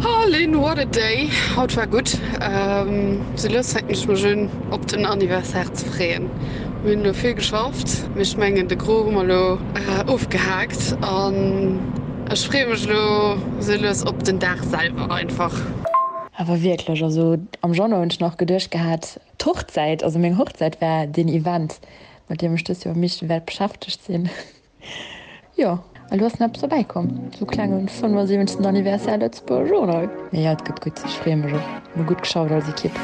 Oh Lynn, what a day! Haut war gutt. Sou lues fänken ech mech un op den Anniversaire ze freeën. Mir hunn elo vill geschafft, mee ech mengen de Gros hu mer elo ofgehaakt an ech freeë mech elo sou lues op den Dag selwer einfach. Awer wierklech, also am Januar hunn ech nach geduecht gehat, d'Hochzäit, also meng Hochzäit war deen Event, mat deem ech dëst Joer am meeschten wäert beschäftegt sinn. Jo, a lo ass nach eppes dobäi komm, sou klengen 75. Anniversaire Lëtzebuerger Journal. Mee jo, et gëtt gutt, ech freeë mech och. Mir hu gutt geschafft als Ekipp.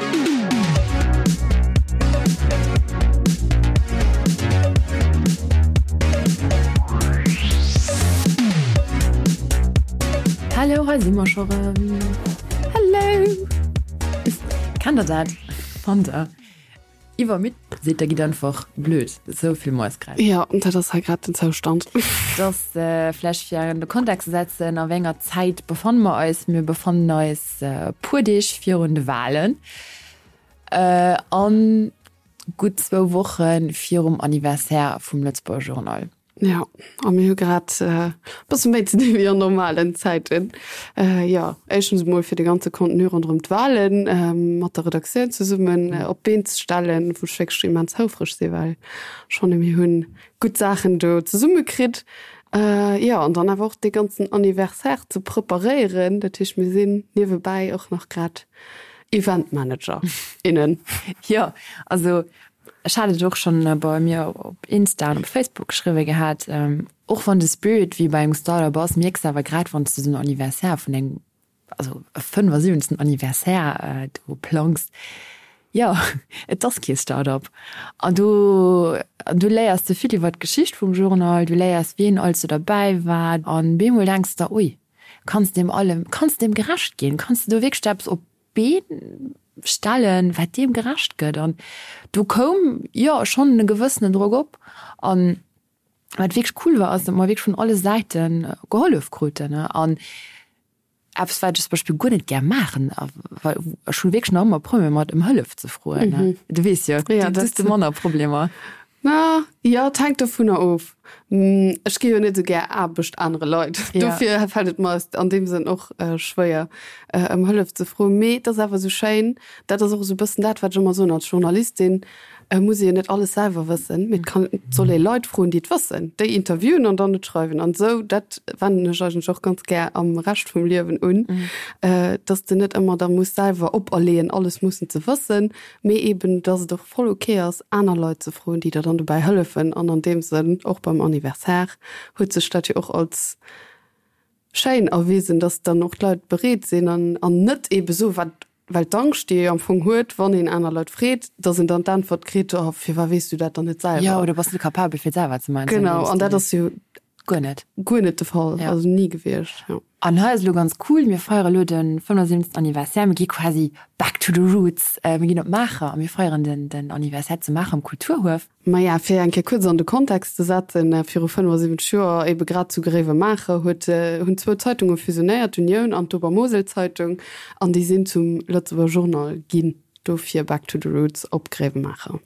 Hallo, hei si mer scho rëm. Hallo! Kennt der dat? Fannt der? Iwwermidd sidd, da gitt einfach blöd. Esou vill Moiskräiz. Jo, dat ass hei grad den Zoustand. Dass vläch fir an de Kontext ze setzen, a wéi enger Zäit befanne mer eis? Mir befannen eis e puer Deeg virun de Wahlen an gutt zwou Woche virum Anniversaire vum Lëtzebuerger Journal. Jo, a mir hu grad e bësse méi ze dinn wéi an normalen Zäiten. Jo, éischtens emol fir de ganze Contenu ronderëm d'Wahlen mat der Redaktioun zesummen op d'Been ze stellen, wou ech wierklech immens houfreg sinn, well ech fanne mir hunn gutt Saachen do zesumme kritt. Jo, an dann awer och dee ganzen Anniversaire ze preparéieren. Dat heescht, mir sinn niewebäi och nach grad Eventmanager, innen. Jo, also Ech hat et och schonn bei mir op Insta an op Facebook geschriwwe gehat, och wann de Spirit wéi bei engem Startup ass, mierks de awer grad wann s de esou en Anniversaire vun engem, also e 75. Anniversaire do plangs, jo et ass kee Startup. An do an du léiers de vill iwwer d'Geschicht vum Journal, du léiers wien alles do derbäi war an bemol denks de der, ui, kanns deem allem, kanns deem gerecht ginn, kanns de do wierklech eppes op Been stellen, wat deem gerecht gëtt. An do koum, jo, schonn e gewëssenen Drock op. An wat wierklech cool war, ass, datt mer wierklech vun alle Säite gehollef kruten. An eppes, wat ech zum Beispill guer net gär maachen, well ech hu wierklech nach ëmmer Problemer mat, ëm Hëllef ze froen. Du weess jo, du hues de manner Problemer. Na jo, et hänkt dovunner of. Ech gi jo net esou gär Aarbecht anere Leit. Dofir fält et mer an deem Sënn och schwéier, ëm Hëllef ze froen. Mee et ass awer esou schéin, dat ass och esou e bëssen dat, wat ech ëmmer soen, als Journalistin muss ee jo net alles selwer wëssen, mee et kann, et soll ee Leit froen, déi et wëssen, déi interviewen an dann et schreiwen. An esou, dat wenden ech eigentlech och ganz gär am Rescht vum Liewen un, dass de net ëmmer der muss selwer operleeën, alles mussen ze wëssen, mee eben, dass et och voll ok ass, aner Leit ze froen, déi der dann dobäi hëllefen. An an deem Sënn, och beim Anniversaire huet sech dat jo och als schéin erwisen, dass dann och d'Leit bereet sinn an an net eebe soen, wat, well d'Angscht, déi ee jo am Fong huet, wann een aner Leit freet, dass een dann d'Äntwert kritt, Oh, firwat weess du dat dann net selwer? Jo, oder bass net capabel, fir et selwer ze maachen. Genau, an dat ass jo guer net guer net de Fall, also ni gewiescht, jo. An hei ass elo ganz cool, mir feiere elo de 75. Anniversaire, mir gi quasi back to the roots, mir ginn op Maacher a mir feieren den den Anniversaire zu Maacher am Kulturhuef. Maja, fir eng Kéier kuerz an de Kontext ze setzen, Viru 75 Joer, ebe grad zu Gréiwemaacher, huet hunn zwou Zeitunge fusionéiert, d'Unioun an d'Obermoselzeitung, an déi sinn zum Lëtzebuerger Journal ginn. Dofir back to the roots op Gréiwemaacher.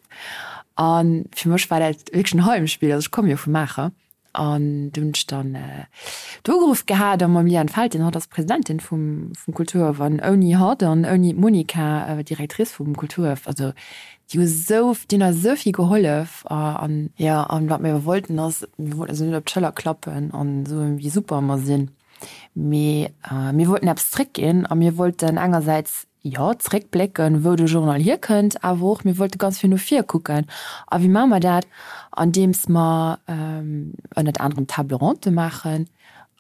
A fir mech war dat wierklech en Heimspill, also ech komme jo vu Maacher. An du hunn ech dann do ugeruff gehat a mam Liane Felten, hatt ass Presidentin vum vum Kulturhaff, an ouni hatt an ouni d'Monica, Directrice vum Kulturhaff, also déi hu sou, déi hunn eis esou vill gehollef. An jo, an wat mir awer wollten ass, mir wollten eis net op d'Schëller klappen an soen, wéi super mer sinn, mee mir wollten eppes zréckginn a mir wollten engersäits jo, zréckblécken, wou de Journal hierkënnt, awer och mir wollte ganz vill no vir kucken. A wéi maache mer dat? Andeems mer ënnert anerem Table ronde maachen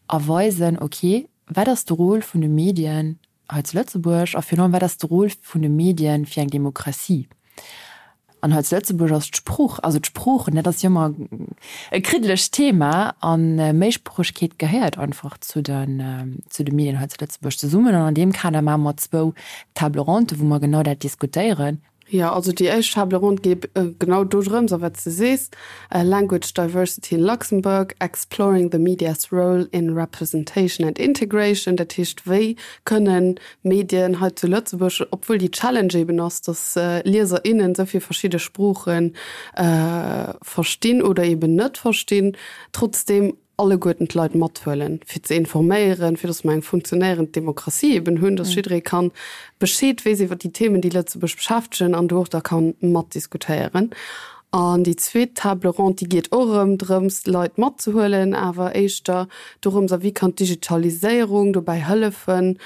a weisen, okay, wat ass de Rôle vun de Medien hei zu Lëtzebuerg a virun allem, wat ass de Rôle vun de Medien fir eng Demokratie? An hei zu Lëtzebuerg ass d'Sprooch, also d'Sproochen, dat ass jo ëmmer e kriddelegt Thema a Méisproochegkeet gehéiert einfach zu den, zu de Medien hei zu Lëtzebuerg zesummen. An an deem Kader maache mer zwou Table ronde, wou mer genau dat diskutéieren. Jo, also déi éischt Table ronde geet genau dodrëms, a wat s de sees, Language diversity in Luxembourg, exploring the media's role in representation and integration. Dat heescht, wéi kënnen Medien hei zu Lëtzebuerg, obwuel déi Challenge eben ass, datt Lieser, innen esou vill verschidde Sprooche verstinn oder eben net verstinn, trotzdeem. Alleguerten d'Leit mathuelen, fir ze informéieren, fir datt mer eng funktionéierend Demokratie eben hunn, datt jidderee kann Bescheed weess iwwer déi Themen, déi Lëtzebuerg beschäftegen an do och da kann matdiskutéieren. An déi zweet Table ronde, déi geet och erëm drëms, d'Leit matzehuelen, awer éischter dorëms, a wéi kann d'Digitaliséierung dobäi hëllefen,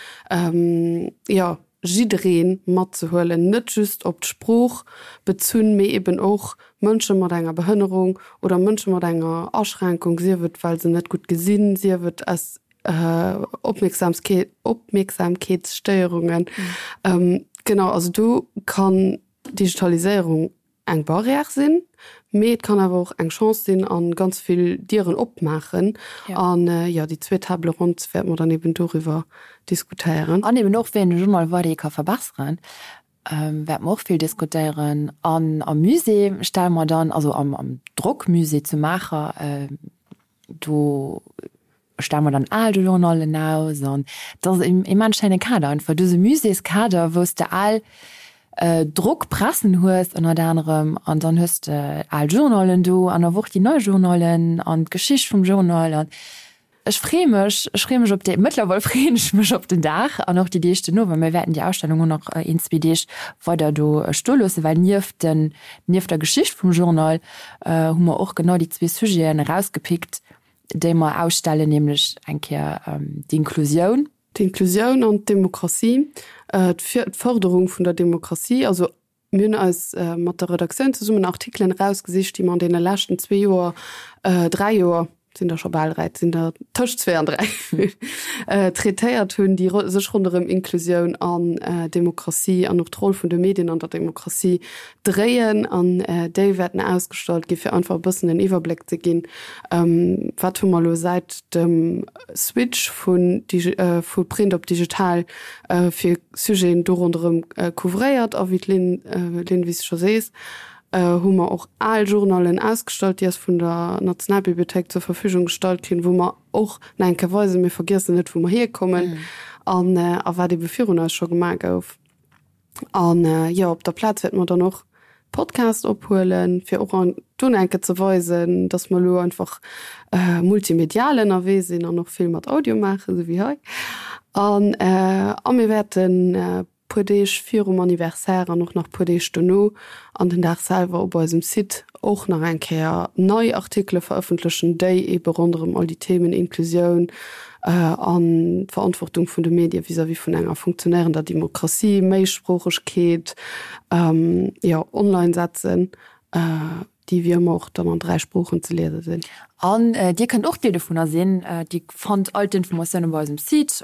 jo, jidderee matzehuelen, net just op d'Sprooch bezunn, mee eben och Mënsche mat enger Behënnerung oder Mënsche mat enger Aschränkung, sief et well se net gutt gesinn, sief et aus Opmierksamkeetsstéierungen. Genau, also do kann d'Digitaliséierung eng Barrière sinn, mee et kann awer och eng Chance sinn a ganz vill Dieren opmaachen. An jo, déi zweet Table ronde wäerte mer dann eben doriwwer diskutéieren. An eben och, wéi een de Journal weiderhi ka verbesseren, wäerte mer och vill diskutéieren. An am Musée stelle mer dann, also am Drockmusée zu Maacher, Do stelle mer dann al Journallen aus an dat ass en immens schéine Kader einfach. Du hues e Muséeskader, wou s de al Drockpressen hues ënnert anerem an dann hues de al Journallen do an awer och déi nei Journallen an d'Geschicht vum Journal an ech freeë mech, ech freeë mech op dee, mëttlerweil freeën ech mech op den Dag an och déi Deeg duerno, well mir wäerten déi Ausstellung och nach een, zwee Deeg weider do stoe loossen, well nieft den, nieft der Geschicht vum Journal hu mer och genau déi zwee Sujeten erausgepickt, déi mer ausstellen, nämlech eng Kéier d'Inklusioun. D'Inklusioun an d'Demokratie, d'Fërderung vun der Demokratie. Also mir hunn eis mat der Redaktioun zesummen Artikelen erausgesicht, déi mer an deene leschten zwee Joer, dräi Joer, Et sinn der scho bal 3, et sinn der tëscht zwee an 3, traitéiert hunn, déi sech ronderëm Inklusioun an Demokratie an och d'Roll vun de Medien an der Demokratie dréien. An déi wäerten ausgestallt ginn, fir einfach e bëssen en Iwwerbléck ze ginn, Wat hu mer elo säit dem Switch vu Print op digital fir Sujeten do ronderëm couvréiert? A wéi d'Lynn, wéi s de scho sees, hu mer och al Journallen ausgestallt, déi eis vun der Nationalbibliothéik zur Verfügung gestallt ginn, wou mer och nach eng Kéier weisen, mir vergiessen net, wou mer hierkommen an a wat ebe virun eis scho gemaach gouf. An jo, op der Plaz wäerte mer dann och Podcast ophuelen, fir och an do nach eng Kéier ze weisen, dass mer elo einfach multimedial ënnerwee sinn an och vill mat Audio maachen, esou wéi hei. An a mir wäerten puer Deeg virum Anniversaire an och nach puer Deeg dono an den Dag selwer op eisem Site och nach eng Kéier nei Artikele verëffentlechen, déi eebe ronderëm all déi Themen Inklusioun an d'Verantwortung vun de Medie vis-à-vis vun enger funktionéierender Demokratie, Méisproochegkeet, jo, online setzen. Déi wéi ëmmer och dann an 3 Sproochen ze liese sinn. An Dir kënnt och Deel dovunner sinn. Dir fannt all d'Informatioune bei eisem Site,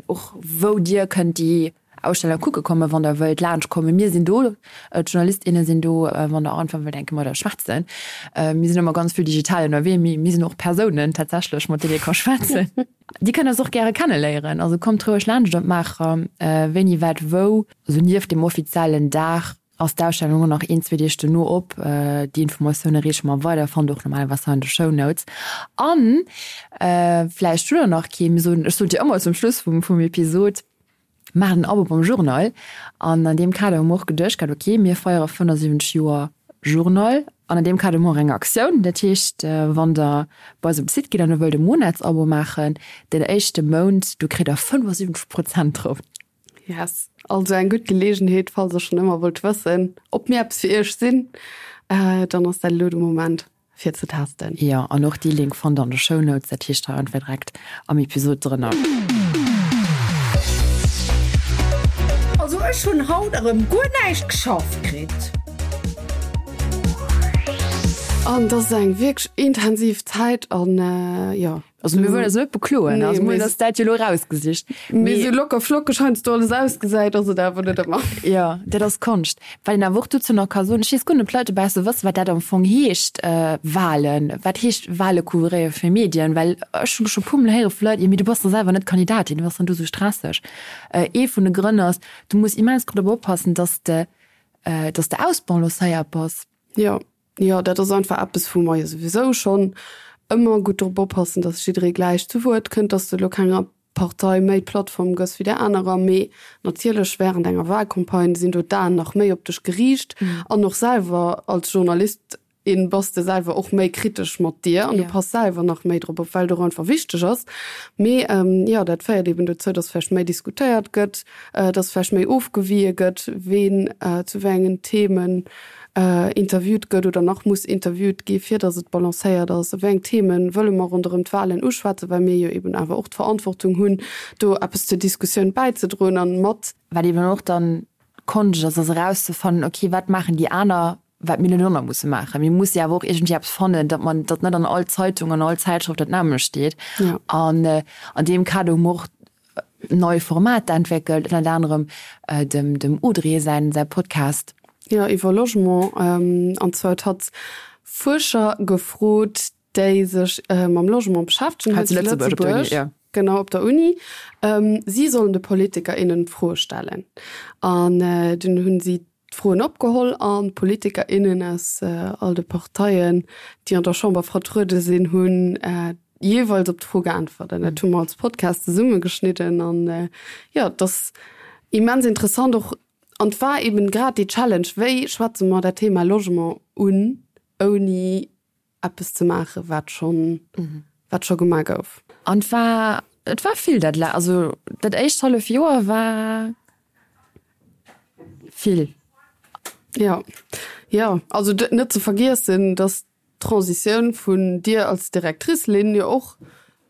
och wou Dir kënnt déi Ausstellung kucke kommen, wann Der wëllt laanscht kommen. Mir sinn do, d'Journalist, inne sinn do, wann Der einfach wëllt eng Kéier mat eis schwätzen. Mir sinn ëmmer ganz vill digital ënnerwee, mee mir sinn och Persounen tatsächlech, mat deenen ee ka schwätzen. Dir kënnt eis och gäre kenneléieren, also kommt roueg laanscht op Maacher, wéini, wat, wou. Also nieft dem offiziellen Dag Ass d'Ausstellung och nach een, zwee Deeg dono op. Déi Informatioune reeche mer weider, fannt och normalerweis hei an de Shownotes. An vläicht hutt der nach kee, mir soen, ech soen et jo ëmmer zum Schluss vum vum Episod, maacht en Abo beim Journal. An an deem Kader hu mer och geduecht gehat, ok, mir feiere 75 Joer Journal an an deem Kader hu mer och eng Aktioun. Dat heescht, wann der bei eis op de Site gitt an der wëllt e Monatsabo maachen, den éischte Mount, do kritt der 75 Prozent drop. Yes, also eng gutt Geleegenheet, falls der schon ëmmer wollt wëssen, ob mir eppes fir iech sinn, dann ass dat elo de Moment fir ze testen. Jo, an och dee Link fannt der an de Shownotes, dat heescht hei einfach direkt am Episod drënner. Also ech hun haut erem guer näischt geschafft kritt. An dat ass eng wierklech intensiv Zäit an jo. Also mir wëllen eis net bekloen, nee, also mir hunn eis dat jo elo erausgesicht. Mee esou locker flockeg heiansdo alles ausgesäit, ass et awer net ëmmer. Jo, dat ass Konscht. Wat een awer och dozou nach ka soen, ech weess guer net, ob d'Leit dobausse wëssen, wat dat am Fong heescht, Wahlen. Wat heescht Wahle couvréiere fir Medien? Well ech hu scho puer mol héiere vu Leit, jo mee du bass da selwer net Kandidatin, wat ass dann do esou stresseg? Ee vun de Grënn ass, du muss immens gutt drop oppassen, dass de, dass de ausbalancéiert bass. Jo. Jo, dat ass einfach eppes, wou mer jo souwisou schonn ëmmer gutt drop oppassen, dass jidderee gläich zu Wuert kënnt, dass de elo kenger Partei méi Plattform gëss wéi där anerer. Mee natierlech wärend enger Wahlcampagne sinn do d'Aen nach méi op dech geriicht an och selwer als Journalist. In bass de selwer och méi kritesch mat dir an du pass selwer nach méi drop op, well et och einfach wichteg ass. Mee jo, dat féiert eben dozou, dass vläicht méi diskutéiert gëtt, dass vläicht méi ofgewie gëtt, ween zu wéi engen Themen interviewt gëtt oder nach muss interviewt gi fir dass et balancéiert ass. Wéi eng Themen wëlle mer ronderëm d'Wahlen uschwätzen, well mir jo eben awer och d'Verantwortung hunn, do eppes zur Diskussioun bäizedroen an mat. Wat eben och dann d'Konscht ass, ass erauszefannen, okay, wat maachen déi aner, wat mir net och nach musse maachen. Mir musse jo awer och iergendwéi eppes fannen, datt man, datt net an all Zeitung, an all Zäitschrëft dat nämmlecht steet. Ja. An an deem Kader hu mer och nei Formater entwéckelt, ënnert anerem dem dem Audrey säin säi Podcast. Jo, iwwer Logement. An zwar huet hatt Fuerscher gefrot, déi sech mam Logement beschäftegen hei zu Lëtzebuerg, op der Uni, ja. Genau, op der Uni. Si sollen de Politiker, innen Froe stellen. An dunn hunn si d'Froen opgeholl an d'Politiker, innen aus all de Parteien, déi an der Chamber vertruede sinn, hunn jeeweils op d'Fro geäntwert. An dat hu mer als Podcast zesummegeschnidden. An jo, et ass immens interessant och. An et war eben grad déi Challenge, Wéi schwätze mer dat Thema Logement un, ouni eppes ze maachen, wat schonn, wat scho gemaach gouf. An et war, et war vill dat, also dat éischt hallef Joer war vill. Jo, jo, also net ze vergiessen, datt d'Transitioun vun dir als Directrice, Lynn, jo och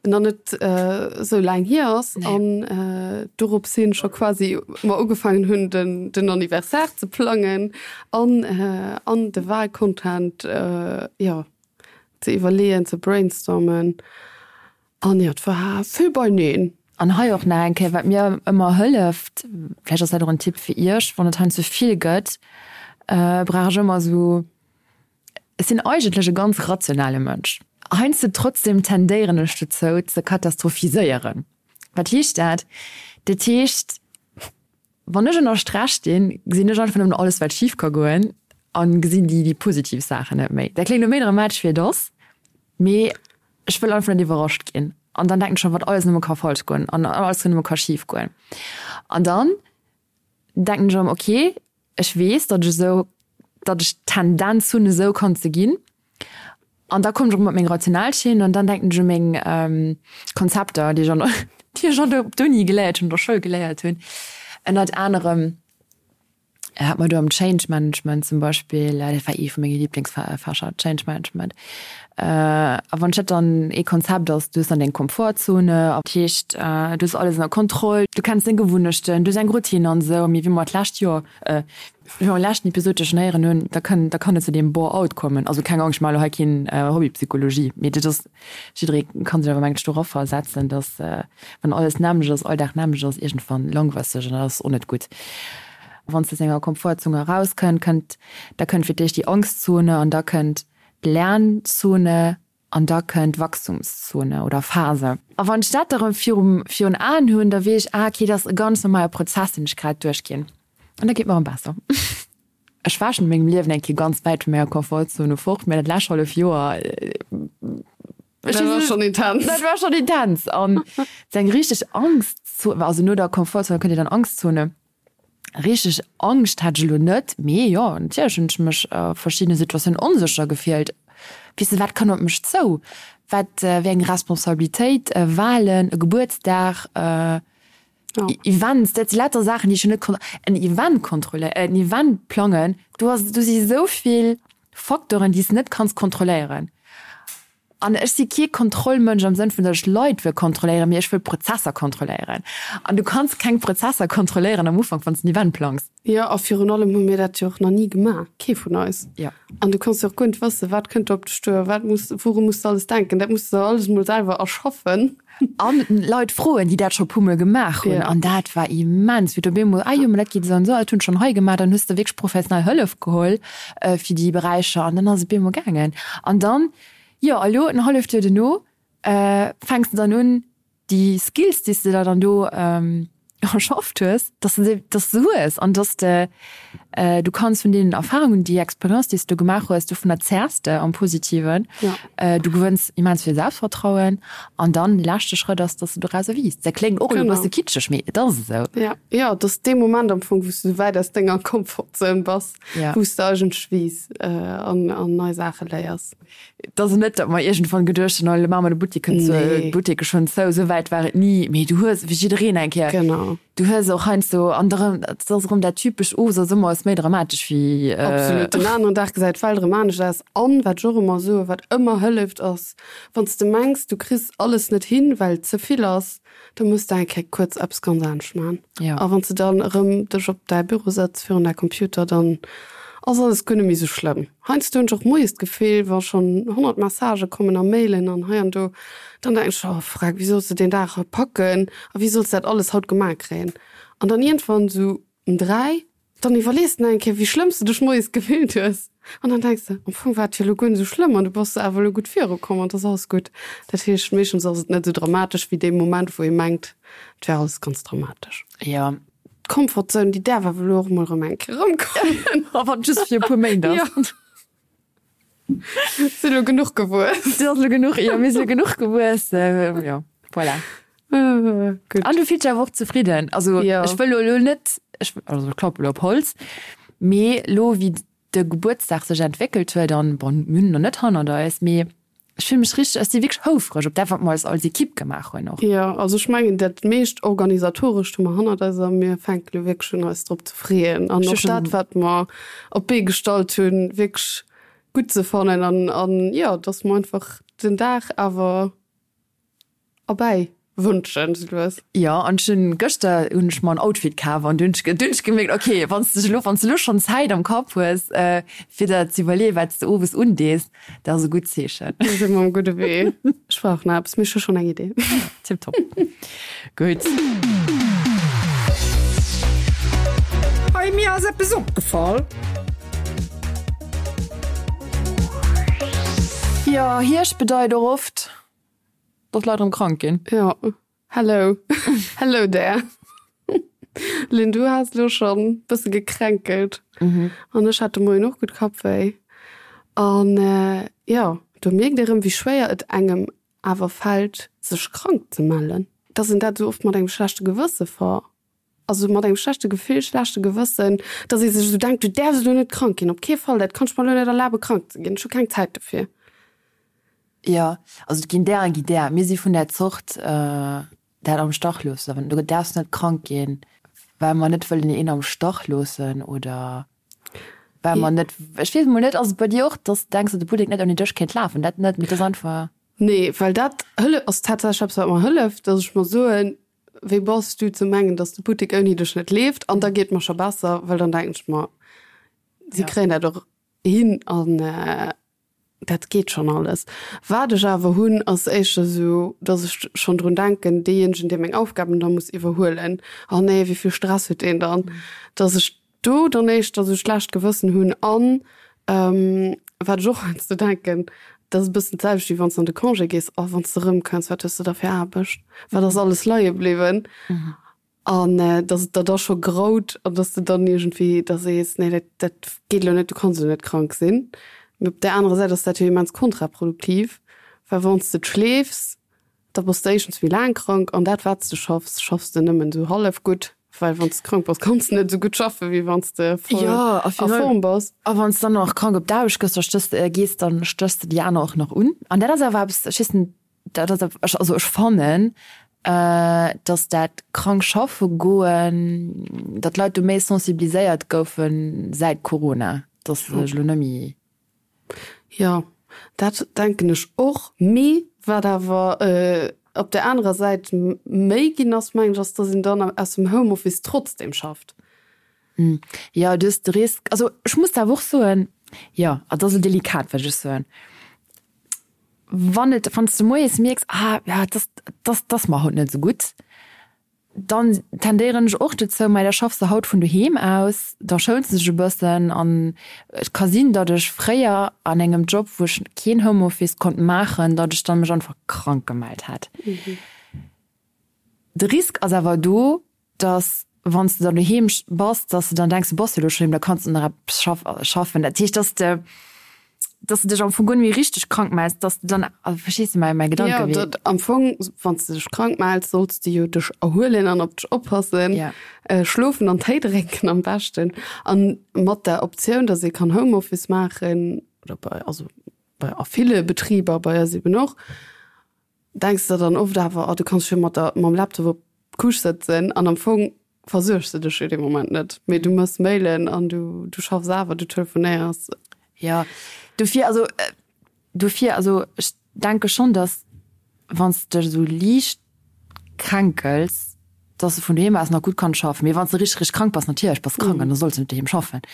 nach net esou laang hier ass an dorops hin scho quasi mer ugefaangen hunn den den Anniversaire ze plangen an an de Wahlcontent jo ze iwwerleeën, ze brainstormen an jo et war vill beineen. An hei och nach eng Kéier, wat mir ëmmer hëlleft, vläicht ass dat och en Tipp fir Iech, wann et heiansdo vill gëtt, brauch ech ëmmer esou Ech sinn eigentlech e ganz rationale Mënsch. Heiansdo trotzdem tendéieren ech dozou ze katastrophiséieren. Wat heescht dat? Dat heescht, wann ech ënner Stress stinn, gesinn ech einfach nëmmen alles wat schif ka goen an gesinn déi déi positiv Saachen net méi. Dat kléngt elo méi dramatesch wéi et ass, mee ech wëll einfach net iwwerrascht ginn. An dann denken ech schonn, wat alles nëmme ka falsch goen an alles nëmme ka schif goen. An dann denken ech erëm, ok, ech weess, datt ech esou, datt ech d'Tendenz hunn, esou kann ze ginn. An da kommen ech erëm op meng rational Schinn an dann denken ech u meng Konzepter, déi ech an der, déi ech an der, op d'Uni geléiert hunn, an der Schoul geléiert hunn. Ënnert anerem hat mer do am Change Management zum Beispill, dat war ee vu menge Liblingsfächer, Change Management. A wann ech dat dann, ee Konzept ass, du hues dann deng Komfortzone, dat heescht, du hues alles ënner Kontroll, du kenns deng Gewunnechten, du hues eng Routine an esou. Mee wéi mer d'lescht Joer, wéi mer am leschten Episod jo schonn héieren hunn, da kann, da kann et zu deem Bore-out kommen. Also keng Angscht, ech maache elo hei keen Hobbypsychologie, mee dat ass, jidderee ka sech awer mengen ech do eraversetzen, datt wann alles d'nämmlecht ass, all Dag d'nämmlecht ass, iergendwann langweist sech an dat ass och net gutt. Wann s de aus denger Komfortzone erauskënnt, kënnt, da kënnt fir d'éischt déi Angstzone an da kënnt Lernzone an da kënnt Wachstumszone oder Phase. A wann ech dat da rëm virum, virun Aen hunn, da weess ech, ah okay, dat ass e ganz normale Prozess, deen ech grad duerchginn. An da geet mer erëm besser. Ech war schonn a mengem Liewen eng Kéier ganz wäit vu menger Komfortzone fort, mä dat lescht hallef Joer, Dat war schonn intens. Dat war schonn intens. An sou eng richteg Angstzone, also no der Komfortzone kënnt jo dann Angstzone. Richteg Angscht hat ech elo net, mee jo, natierlech hunn ech mech a verschiddene Situatiounen onsécher gefillt. Weess de, wat kënn op mech zou? Wat, wéi eng Responsabilitéit, Wahlen, e Gebuertsdag, Events, dat si lauter Saachen, déi ech jo net kon-, en Event kontrolléieren, en Event plangen, do ass, do si esou vill Facteuren, déi s de net kanns kontrolléieren. An ech si kee Kontrollmënsch am Sënn vun, datt ech Leit wëll kontrolléieren, mee ech wëll Prozesser kontrolléieren. An du kanns keng Prozesser kontrolléieren am Ufank, wann s de en Event plangs. Jo, a virun allem hu mir dat jo och nach ni gemaach, kee vun eis. Jo. An du kanns jo och guer net wëssen, wat kënnt do op dech duer, wat muss, wouru muss de alles denken. Dat muss de der alles emol selwer erschaffen. An Leit froen, déi dat scho puer mol gemaach hunn. An dat war immens, wéi du op eemol, ah jo, ma dat geet esou an esou, dat hunn ech schonn hei gemaach. Dann hues de wierklech professionell Hëllef geholl fir déi Beräicher an dann ass et op eemol gaangen. An dann, jo, a lo en halleft Joer duerno fänks de dann un, déi Skills, déi s de der dann do. erschafft hues, dass de se, dass de se hues an dass de, du kanns vun deenen Erfahrungen, déi Expérience, déi s du gemaach hues, dovunner zehrs de am Positiven. Ja. Du gewënns immens vill Selbstvertrauen an dann de leschte Schrëtt ass, dass du dorauser wiisst. Dat kléngt och elo e bësse kitscheg, mee et ass esou. Ja, jo, et ass dee Moment am Fong, wou s du esou wäit aus denger Comfortzone bass, Ja. wou s de eigentlech wiiss an nei Saache léiers. Et ass net, datt mer iergendwann geduecht hunn, oh elo maache mer de Buttek zou, Nee. d'Buttek ass schonn zou. Esou wäit war et ni. Mee du hues, wéi jiddereen eng Kéier, Genau. du hues och heiansdo, an da rëm, et ass erëm dat typescht, owes ass ëmmer alles méi dramatesch wéi. Absolut. Den aneren Dag gesäit d'Welt erëm anescht aus. An, wat ech och ëmmer soen, wat ëmmer hëlleft, ass, wann s de mengs, du kriss alles net hin, well et ze vill ass, da muss de eng Kéier kuerz eppes ganz anescht maachen. Ja. A wann s de dann erëm dech op däi Büro sëtz virun däi Computer, dann ass alles guer net méi sou schlëmm. Heiansdo hunn ech och moies d'Gefill, wa schonn 100 Messagë kommen a Mailen an hei an do, dann denken ech, oh freck, wéi solls de deen Dag haut packen a wéi solls de dat alles haut gemaach kréien? An dann iergendwann sou um 3, dann iwwerlees de nach eng Kéier, wéi schlëmm s de dech moies gefillt hues an dann denks de, am Fong war et jo elo guer net esou schlëmm an du bass awer elo gutt virukomm an et ass alles gutt. Dat heescht, meeschtens ass et net esou dramatesch wéi dee Moment, wou ee mengt, et wär alles ganz dramatesch. Jo. D'Comfortzone, déi däerf awer elo och mol erëm eng Kéier erëmkommen. A wann et just fir e puer Méint ass. Jo. Si elo genuch gewuess. Si ass elo genuch, jo, mir si elo genuch gewuess, jo, voilà. Gutt. An du fills dech awer och zefridden. Also Jo. ech wëll elo net, ech, also ech klappe elo op Holz, mee elo wéi de Gebuertsdag sech entwéckelt huet an, bon, mir hunn en nach net hannert eis, mee Ech fille mech richteg, ech si wierklech houfreg op dat, wat mer als als Equipe gemaach hunn och. Jo, also ech mengen dat meescht Organisatorescht hu mer hannert eis a mir fänke lo wierklech un eis drop ze freeën an och dat, wat mer op d'Bee gestallt hunn, wierklech gutt ze fannen an an jo, dass mer einfach den Dag awer erbäi wënschen sou lues. Jo, an ech hunn gëschter hunn ech mer en Outfit kaf an du hunn ech du hunn ech gemierkt, okay, wann s de elo wann s de elo schonn Zäit am Kapp hues, fir der ze iwwerleeën, wat s de owes undees, dat ass e gutt Zeechen. Da si mer um gudde Wee. Ech brauch nach eppes, mee ech hu schonn eng Idee. Tiptop. Gutt. Hey, mir ass eppes opgefall. Jo, Hierscht bedeit och oft. Dass Leit erëm krank ginn. Jo, hello, hello there. Lynn, du has elo schonn bësse gekränkelt. An ech hat de Moien och gutt Kappwéi. An jo, do mierkt ee rëm, wéi schwéier et engem awer fält, sech krank ze mellen. Dass een dat esou oft mat engem schlechte Gewësse ver, also mat engem schlechte Gefill, schlechte Gewëssen, dass ee sech esou denkt, du däerfs elo net krank ginn, op kee Fall, dat kann ech mer elo net erlabe krank ze ginn, ech hu keng Zäit dofir. Jo, also et ginn där a gi där. Mir si vun där Zort, dat am Stach loossen. Du däerfs net krank ginn, well mer net wëllen een am Stach loossen oder well mer net, ech weess emol net, ass et bei dir och, dass de denks, datt de Buttek net ouni dech kéint lafen? Dat net, mee et ass einfach. Nee, well dat hëlleft, ass tatsächlech eppes, wat mer hëlleft, dass ech mer soen, Wéi bass du ze mengen, dass de Buttek ouni dech net leeft? An da geet et mer scho besser, well dann denken ech mer, si kréien dat och hin an Dat geet schonn alles. Wat ech awer hunn, ass éischter esou, datt ech schonn drun denken, deejéinegen, dee meng Aufgaben da muss iwwerhuelen, oh nee, wéi vill Stress huet deen dann, datt ech do dann éischter esou schlecht Gewëssen hunn. An wat ech och heiansdo denken, dat ass e bëssen d'selwecht, wéi wann s de an de Congé gees, oh, wann s de erëmkënns, wat hues de da fir Aarbecht, wat ass alles leie bliwwen? An dass et der da scho graut an dass de dann iergendwéi da sees, nee, dat, dat geet elo net, du kanns elo net krank sinn. Mee op där anerer Säit ass dat jo immens kontraproduktiv, well wann s de schleefs, da bass de éischtens méi laang krank an dat, wat s de schaffs, schaffs de nëmmen esou hallef gutt, well wann s de krank bass, kanns de net esou gutt schaffen, wéi wann s de voll a Form bass. A wann s de dann nach krank op d'Aarbecht gëss, da stéchs de, gees, dann stéchs de déi aner och nach un. An dat ass awer eppes, ech weess net, Dat ass awer, also ech fannen, datt dat krank schaffe goen, datt d'Leit do méi sensibiliséiert goufe säit Corona, datt se sech elo net méi. Jo, dat denken ech och. Mee wat awer op där anerer Säit méi ginn ass, mengen ech, ass, datt een dann aus dem Homeoffice trotzdem schafft. Jo, du hues de Risk, also ech muss awer och soen, jo, et ass elo delikat, wat ech soen. Wann et, wann s de moies mierks, ah ja, et ass, et ass, et ass mer haut net esou gutt, dann tendéieren ech och dozou, mei da schaffs de haut vun doheem aus, da schouns de dech e bëssen an et ka sinn, datt ech fréier an engem Job, wou ech keen Homeoffice konnt maachen, datt ech dann mech einfach krank gemellt hätt. De Risk ass awer do. Dass wann s de dann doheem bass, dass de dann denks, du bass jo elo scho doheem, da kanns de nach eppes schaffen. Dat heescht, dass de, dass de dech am Fong guer net méi richteg krank mells, dass de dann, also verstees de mäi, mäi Gedankewee? Jo, dat am Fong, wann s de dech krank mells, solls de jo dech erhuelen an op dech oppassen, schlofen an Téi drénken am beschten. An mat der Optioun, dass ee kann Homeoffice maachen, oder bei, also bei a ville Betriber, bei eis eben och, Denks der dann oft awer, oh du kanns jo mat der mam Laptop op d'Couche sëtzen an am Fong versuergs de dech jo dee Moment net, mee du mëss Mailen an du du schaffs awer, du telefonéiers. Jo, dofir also dofir also ech denke schonn, datt wann s de dech esou liicht kränkels, datt s de vun doheem aus nach gutt kanns schaffen, mee wann s de richteg richteg krank bass, natierlech bass krank an da solls de net doheem schaffen.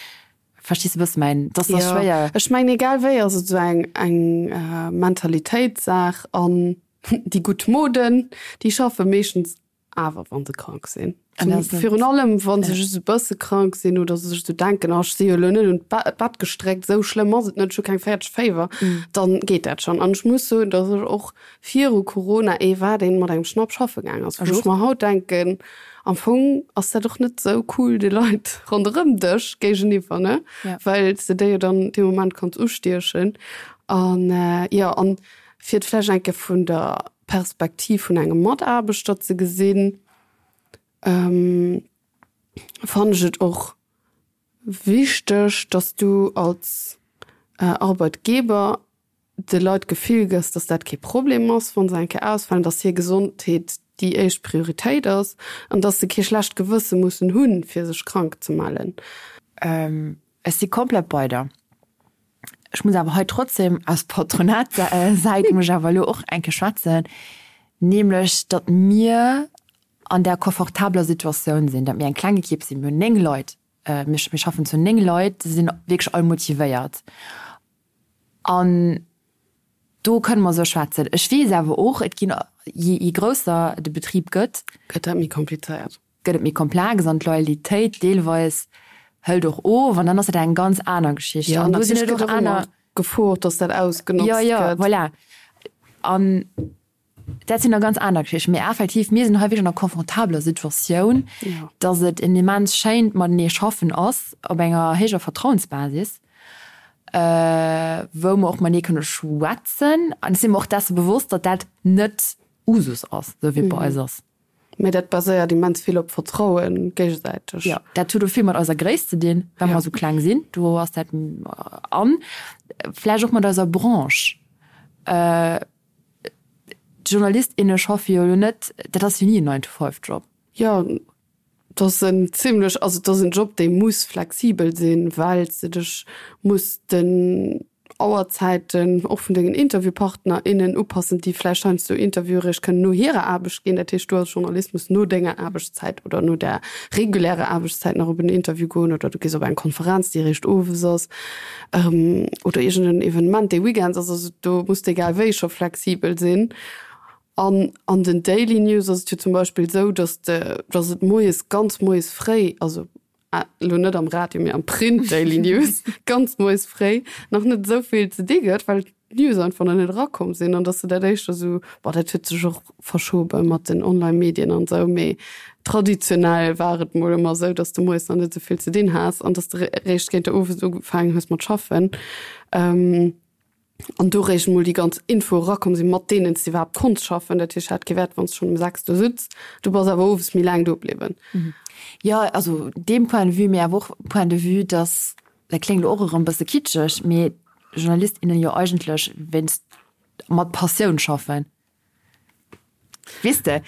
Verstees de bësse mäin, dass ass schwéier. Jo, ech mengen egal wéi ass et esou eng eng Mentalitéitssaach an déi gutt Moden, déi schaffe meeschtens awer wa se krank sinn. Virun allem wa se just e bësse krank sinn oder se sech esou denken, oh ech si jo elo net un d'Bett gestréckt, esou schlëmm ass et net, ech hu keng 40 Féiwer, dann geet dat schonn. An ech muss soen, dass ech och viru Corona ee war, deen mat engem Schnapp schaffe gaang ass, wou ech mer haut denken, am Fong ass dat och net sou cool de Leit ronderëm dech géigeniwwer, ne? Well s de déi jo dann dee Moment kanns ustiechen. An jo, an fir et vläicht eng Kéier vun der Perspektiv vun engem Mataarbechter ze gesinn, fannen ech et och wichteg, dass du als Arbeitgeber de Leit d'Gefill gëss, dass dat kee Problem ass, wa se eng Kéier ausfalen, dass hir Gesondheet déi éischt Prioritéit ass an dass se kee schlecht Gewësse mussen hunn, fir sech krank ze mellen. Ech si komplett bei der. Ech muss awer hei trotzdem aus Patronatssäit muss ech awer elo och eng Kéier schwätzen, nämlech datt mir an där confortabeler Situatioun sinn, datt mir eng kleng Ekipp sinn. Mir hunn 9 Leit, mir schaffen zu 9 Leit, se sinn wierklech all motivéiert. An do kënne mer esou schwätzen. Ech weess awer och, et ginn, je grousser de Betrib gëtt, Gëtt dat méi komplizéiert. Gëtt et méi komplex an d'Loyalitéit deelweis hëlt och of an dann ass dat eng ganz aner Geschicht. Jo, an do sinn et och aner. Gefor, datt dat ausgenotzt gëtt. Jo, jo, voilà. An Dat sinn da ganz aner Geschichten. Mee effektiv, mir sinn hei wierklech an enger confortabeler Situatioun, dass et en immens schéint matenee schaffen ass op enger héijer Vertrauensbasis, wou mer och matenee kënne schwätzen. An ech si mer och desse bewosst, datt dat net Usus ass, esou wéi et bei eis ass. Mee dat baséiert immens vill op Vertrauen, géigesäiteg. Jo, dat huet och vill mat eiser Gréisst ze dinn, well mer esou kleng sinn. Do ass dat an vläicht och mat eiser Branche. D'Journalist, inne schaffe jo elo net, dat ass jo ni en Nine-to-five-Job. Jo, et ass en zimlech, also et ass en Job, dee muss flexibel sinn, well s de dech muss den Auerzäiten och vun dengen Interviewpartner, innen upassen, déi vläicht heiansdo Interviewe réischt kënnen no hirer Aarbecht ginn. Dat heescht, du als Journalist muss no denger Aarbechtszäit oder no der regulärer Aarbechtszäit nach op en Interview goen oder du gees op eng Konferenz, déi réischt owes ass. Oder iergend en Evenement dee Weekends ass. Also do muss de egal wéi scho flexibel sinn. An an den Daily News ass et jo zum Beispill esou, datt de, datt et moies, ganz moies fréi, also elo net am Radio, mee am Print Daily News, ganz moies fréi nach net esou vill ze di gëtt, well d'News einfach nach net erakomm sinn an dass de dat éischter esou, bon dat huet sech och verschobe mat den Online-Medien an esou, mee traditionell war et mol ëmmer esou, dass de moies nach net esou vill ze dinn has an dass de réischt géint der Owes ugefaangen hues mat schaffen an do réischt mol déi ganz Info erakomm sinn, mat deenen s de iwwerhaapt konns schaffen. Dat heescht, hat kee Wäert, wann s de schonn um 6 do sutz, du bass awer owes méi laang do bliwwen. Jo, also deem Point de vue, mee awer och Point de vue, dass, dat kléngt elo och erëm e bësse kitscheg, mee Journalist, innen jo eigentlech wéinst mat Passioun schaffen. Weess de?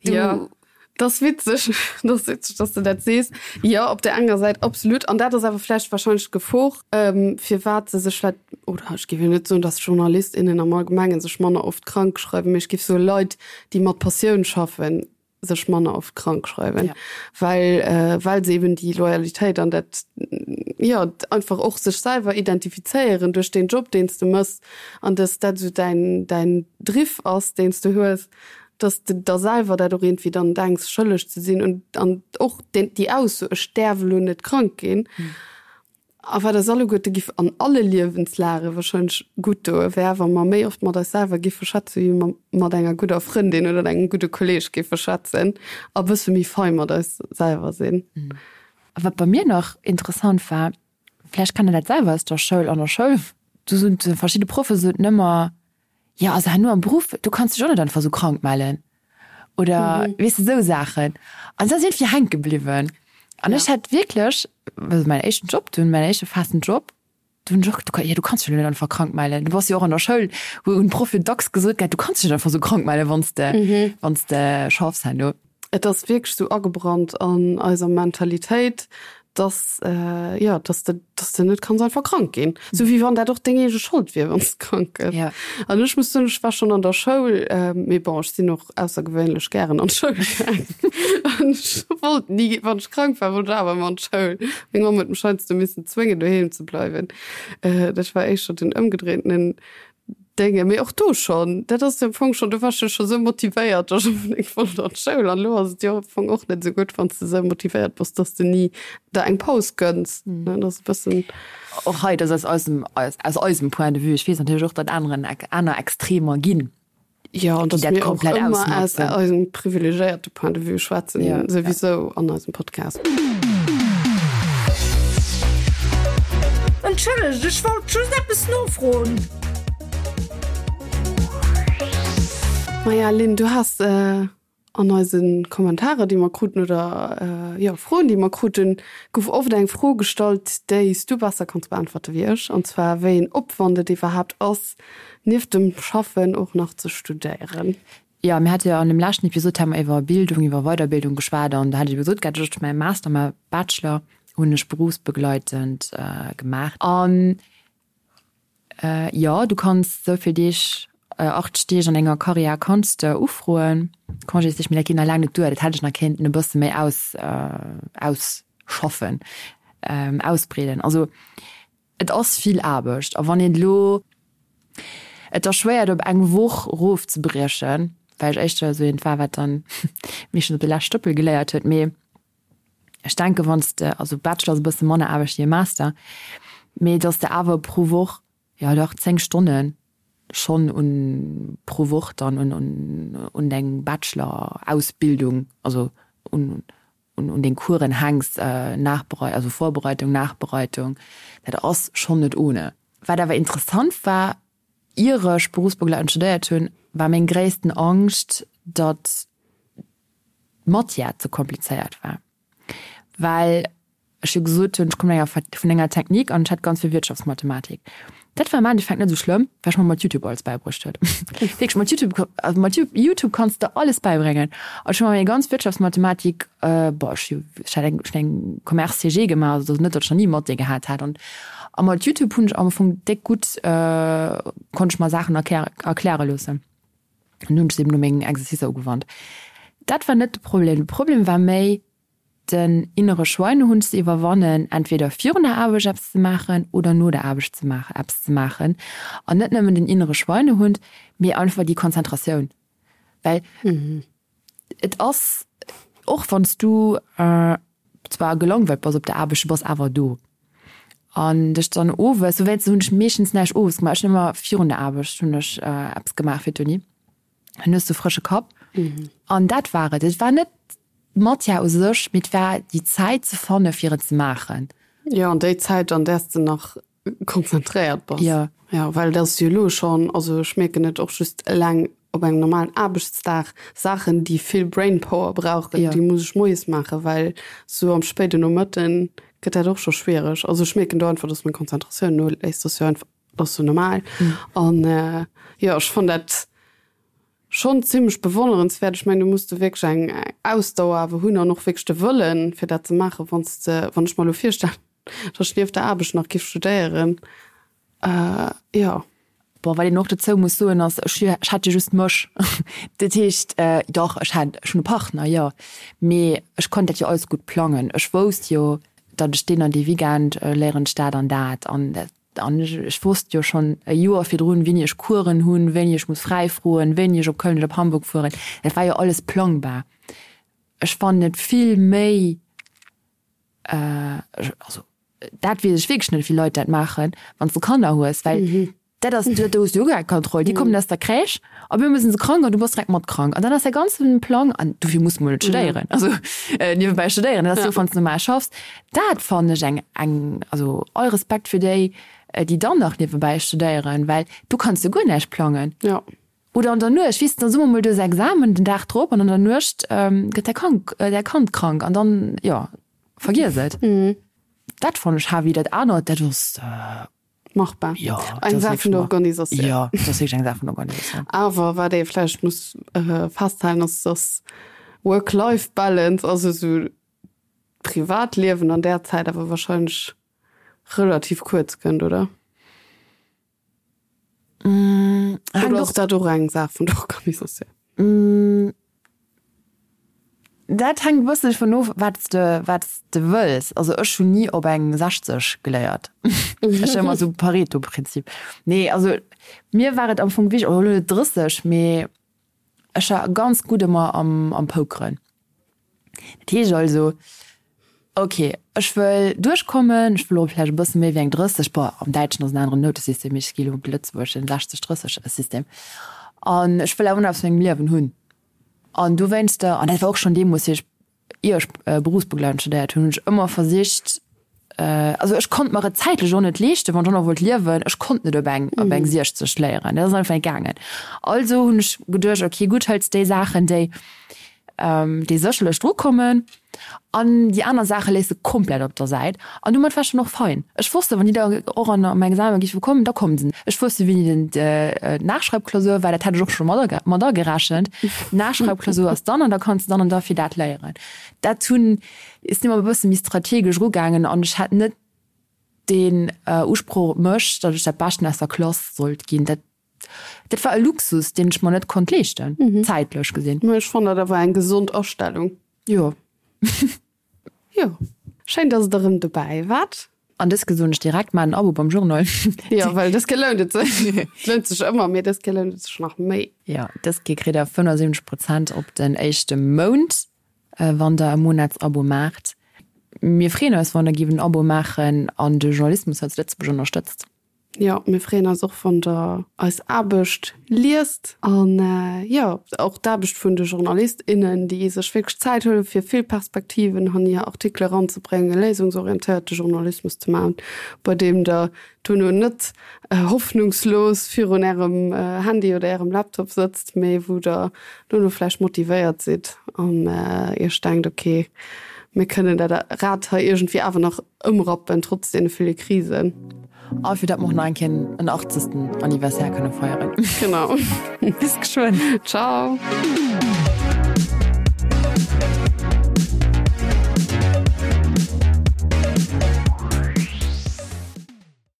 Du. Jo, dat ass witzeg, dat ass witzeg, dass de dat sees. Jo, op där enger Säit absolut. An dat ass awer vläicht wahrscheinlech d'Gefor, firwat se sech vläicht, oder ech géif jo net soen, dass Journalist, innen am Allgemengen sech manner oft krank schreiwen, mee ech géif soe Leit, déi mat Passioun schaffen, sech manner oft krank schreiwen, ja. well, äh, well se eben déi Loyalitéit an dat ja einfach och sech selwer identifizéieren duerch den Job, deen s de mëss an dass dat esou däin, däin Driff ass, deen s de hues, dass de der selwer dat och iergendwéi dann denks schëlleg ze sinn und an och den, déi Ausso, ech däerf elo net krank ginn. Mhm. A wat eis alleguerte giff an alle Liewenslage wahrscheinlech gutt doe wär, wa mer méi oft mat eis selwer giffe schwätze wéi mer mat enger gudder Frëndin oder engem gudde Kolleeg giffe schwätzen a bësse méi fei mat eis selwer sinn. A wat bei mir nach interessant war, vläicht kennt der dat selwer aus der Schoul, an der Schoul, do soten verschidde Proffe soten ëmmer, Jo, also herno am Beruff, do kanns du dech och net einfach esou krank mellen oder weess de, esou Saachen. An dat ass iergendwéi hänke bliwwen. An ech hat wierklech, also mäin éischten Job dunn, mäin éischte festen Job, do hunn ech och geduet, jo, du kanns dech jo net einfach krank mellen. Du bass jo och an der Schoul, wou hunn d'Proffe dacks gesot gehat, du kanns dech net einfach esou krank mellen, wann s de, wann s de schaffs herno. Et ass wierklech esou agebrannt an eiser Mentalitéit, dass, jo, dass de, dass de net kanns einfach krank ginn. Sou wéi wann dat och deng eege Schold wier, wann s de krank gëss. Ja. An ech muss soen, ech war schonn an der Schoul, mee bon, ech sinn och aussergewéinlech gären an d'Schoul gaangen. An ech wollt ni, wann ech krank war, wollt ech awer ëmmer an d'Schoul. Meng Mamm huet mech heiansdo missen zwéngen, doheem ze bleiwen. Dat war éischter den ëmgedréintenen Dénge, mee och do schonn, dat ass jo am Fong schonn, do waars du scho sou motivéiert, datt ech unbedéngt wollt an d'Schoul. An elo ass et jo am Fong och net esou gutt, wann s de esou motivéiert bass, datt s de ni der eng Paus gënns, ne? Dat ass e bëssen. Och hei, dat ass aus eisem, aus eisem Point de vue. Ech weess natierlech och, datt aneren, aner Extremer ginn. Jo, an datt mir och ëmmer aus eisem privilegéierte Point de vue schwätzen, souwisou an eisem Podcast. Entschëllegt, ech wollt just eppes nofroen. Maja, Lynn, du has an eise Kommentarer, déi mer kruten, oder jo, Froen, déi mer kruten, gouf oft eng Fro gestallt, déi s du besser kanns beäntwerte wéi ech, an zwar wéi een Opwand et iwwerhaapt ass, nieft dem Schaffen och nach ze studéieren. Jo, mir hate jo an dem leschten Episod hate mer iwwer Bildung, iwwer Weiderbildung geschwat an do hat ech ebe gesot gehat, ech hu mäi Master, mäi Bachelor hunn ech berufsbegleitend gemaach. An jo, du kanns esou vill Deeg, 80 Deeg an enger Karriär kanns de ufroen, Congésdeeg, mee dat geet nach laang net duer. Dat hätt ech nach kéinten e bësse méi aus, ausschaffen, ausbreeden. Also Et ass vill Aarbecht a wann een elo, et ass schwéier et op eng Woch erofzebriechen, well ech éischter esou eent war, wat dann meeschtens op de leschte Stëppel geléiert huet. Mee ech denken, wann s de, also Bachelor ass e bësse manner Aarbecht wéi e Master, mee datt s de awer pro Woch, jo dach 10 Stonne schonn un pro Woch dann un un un deng Bachelor-Ausbildung, also un un deng Coursen hänks, Nachberei also Vorbereitung, Nachbereitung, dat ass schonn net ohne. Wat awer interessant war, ier ech berufsbegleitend studéiert hunn, war meng gréissten Angscht, datt d'Matière ze komplizéiert war, well ech jo gesot hunn, ech kommen enger vun enger Technique an ech hat ganz vill Wirtschaftsmathematik. Dat war am Endeffekt net esou schlëmm, well ech mer mat Youtube alles bäibruecht huet. Wierklech, mat Youtube, also mat Youtube kanns de alles bäibréngen. An ech hu mer meng ganz Wirtschaftsmathematik, boah, ech hu ech hat eng ech hunn eng Commerce CG gemaach, also et ass net, datt ech nach ni Mathé gehat hätt. An a mat Youtube hunn ech am Fong déck gutt, konnt ech mer Saachen erkläre erkläre loossen. An hunn ech se eben no mengen Exercicer ugewannt. Dat war net de Problem. De Problem war méi, den innere Schweinehund ze iwwerwannen, entweder virun der Aarbecht eppes ze maachen oder no der Aarbecht ze maachen, eppes ze maachen. An net nëmmen den innere Schweinehund, mee einfach déi Konzentratioun. Well et ass, och wann s du zwar gelangweilt bass op der Aarbecht, du bass awer do. An dech dann owes, dowéinst hunn ech meeschtens näischt owes gemaach, ech hunn ëmmer virun der Aarbecht hunn ech eppes gemaach fir d'Uni. Dann hues du frësche Kapp. An dat war et. Et war net d'Matière u sech, mee et war déi Zäit ze fanne fir et ze maachen. Jo, an déi Zäit, an där s de nach konzentréiert bass. Jo. Jo, well et ass jo elo schonn, also ech mierken et och just eleng op engem normalen Aarbechtsdag, Saachen, déi vill Brainpower brauchen, déi muss ech moies maachen, well sou am spéiden Nomëtten gëtt dat och scho schwiereg. Also ech mierken do einfach, dass meng Konzentratioun noléisst. Dat ass jo einfach, dat ass jo normal. An jo, ech fannen dat Schonn zimmlech bewonnerenswäert. Ech mengen, do muss de wierklech eng Ausdauer awer hunn an och wierklech de Wëllen, fir dat ze maachen. Wann s de, wann ech mer elo virstellen, datt ech nieft der Aarbecht nach giff studéieren, jo. Bon, wat een och dozou muss soen, ass, ech ech hat jo just mech. Dat heescht, dach, ech hat, ech hunn e Partner, jo, mee ech konnt dat jo alles gutt plangen. Ech wousst jo, datt ech deen an dee Weekend léieren ech dat an dat an dat. An ech wosst jo schonn e Joer virdrun, wéini ech Coursen hunn, wéini ech muss fräi froen, wéini ech op Köln oder op Hamburg fueren. Dat war jo alles plangbar. Ech fannen et vill méi, also. dat weess ech wierklech net, wéi Leit dat maachen, wann s de Kanner hues, well dat ass, do hues du jo guer keng Kontroll. Déi kommen aus der Crèche a op eemol sinn se krank an du bass direkt mat krank. An dann ass däi ganze Plang, an dofir muss mol net studéieren, also niewebäi studéieren, dat ass jo, wann s de normal schaffs. Dat fannen ech eng, eng, also all Respekt fir déi, déi dann nach niewebäi studéieren, well du kanns jo guer näischt plangen. Oder an der Nuecht, weess de, dann soe mer mol, du hues Examen den Dag drop an an der Nuecht gëtt däi Krank, däi Kand krank an dann, jo, vergiess et. Dat fannen ech heavy. Dat anert, dat ass. Machbar. Jo, eng Saach vun der Organisatioun. Jo, dat ass wierklech eng Saach vun der Organisatioun. Awer wat ee vläicht muss festhalen, ass, dass Work-Life-Balance, also esou d'Privatliewen an där Zäit awer wahrscheinlech relativ kuerz kënnt, oder? Oder ass dat och eng Saach vun der Organisatioun? Dat hänkt e bëssen dovun of, wat s de, wat s de wëlls. Also ech hunn ni op eng 60 geléiert. Ech hu ëmmer esou Pareto-Prinzip. Nee, also mir war et am Fong wichteg, oder elo net 30, mee ech war ganz gutt ëmmer am, am Pokeren. Dat heescht also, ok, ech wëll duerchkommen, ech wëll och vläicht e bësse méi wéi eng 30, bon, am Däitschen ass en aneren Noutesystem, mee ech gi elo op de lëtzebuergeschen 60, 30 System, an ech wëll awer nach eppes vu mengem Liewen hunn. An dowéinster, an dat war och schonn deemools, wéi ech, ier ech berufsbegleitend studéiert hunn, hunn ech ëmmer versicht, also ech konnt mer et zäitlech och net leeschten, wann ech och nach wollt liewen, ech konnt net op eng, op eng 60 léieren, dat ass einfach net gaangen. Also hunn ech geduecht, ok gutt, hëls déi Saachen, déi, déi sécherlech dru kommen an déi aner Saache léiss de komplett op der Säit. An domat war ech dann och fein. Ech wosst, wann déi da och an am Examen géife kommen, da kommen se. Ech wosst jo, wéini den d'Nachschreibklausur war, dat hat ech och scho mat mat agerechent. D'Nachschreibklausur ass dann an da kanns de dann an da fir dat léieren. Dat hunn, ech sinn ëmmer e bësse méi strategesch erugaangen an ech hat net deen Usproch op mech, datt ech dat Beschten aus der Klass sollt ginn. Dat Dat war e Luxus, deen ech mer net konnt leeschten, zäitlech gesinn. Mä ech fannen dat awer eng gesond Astellung. Jo. Jo. Schéin, dass Der erëm dobäi waart. An dës Kéier soen ech direkt, Maach en Abo beim Journal. Jo, well dës Kéier lount et sech. Et lount sech ëmmer, mee dës Kéier lount et sech nach méi. Jo, dës Kéier kritt Der 75 Prozent op den éischte Mount, wann Der e Monatsabo maacht. Mir freeën eis, wann Der giff en Abo maachen an de Journalismus hei zu Lëtzebuerg ënnerstëtzt. Jo, mir freeën eis och wann der eis Aarbecht liest an jo och d'Aarbecht vun de Journalist, innen, déi sech wierklech Zäit huelen fir vill Perspektiven an hir Artikele eranzebréngen, léisungsorientéierte Journalismus ze maachen, bei deem der duerno net hoffnungslos virun ärem Handy oder ärem Laptop sëtzt, mee wou der duerno vläicht motivéiert sidd an iech denkt, ok, mir kënnen dat Rad hei iergendwéi awer nach ëmrappen, trotz deene ville Krisen. A fir datt mer och nach eng Kéier en achtzegsten Anniversaire kënne feieren. Genau. Bis geschwënn. Ciao.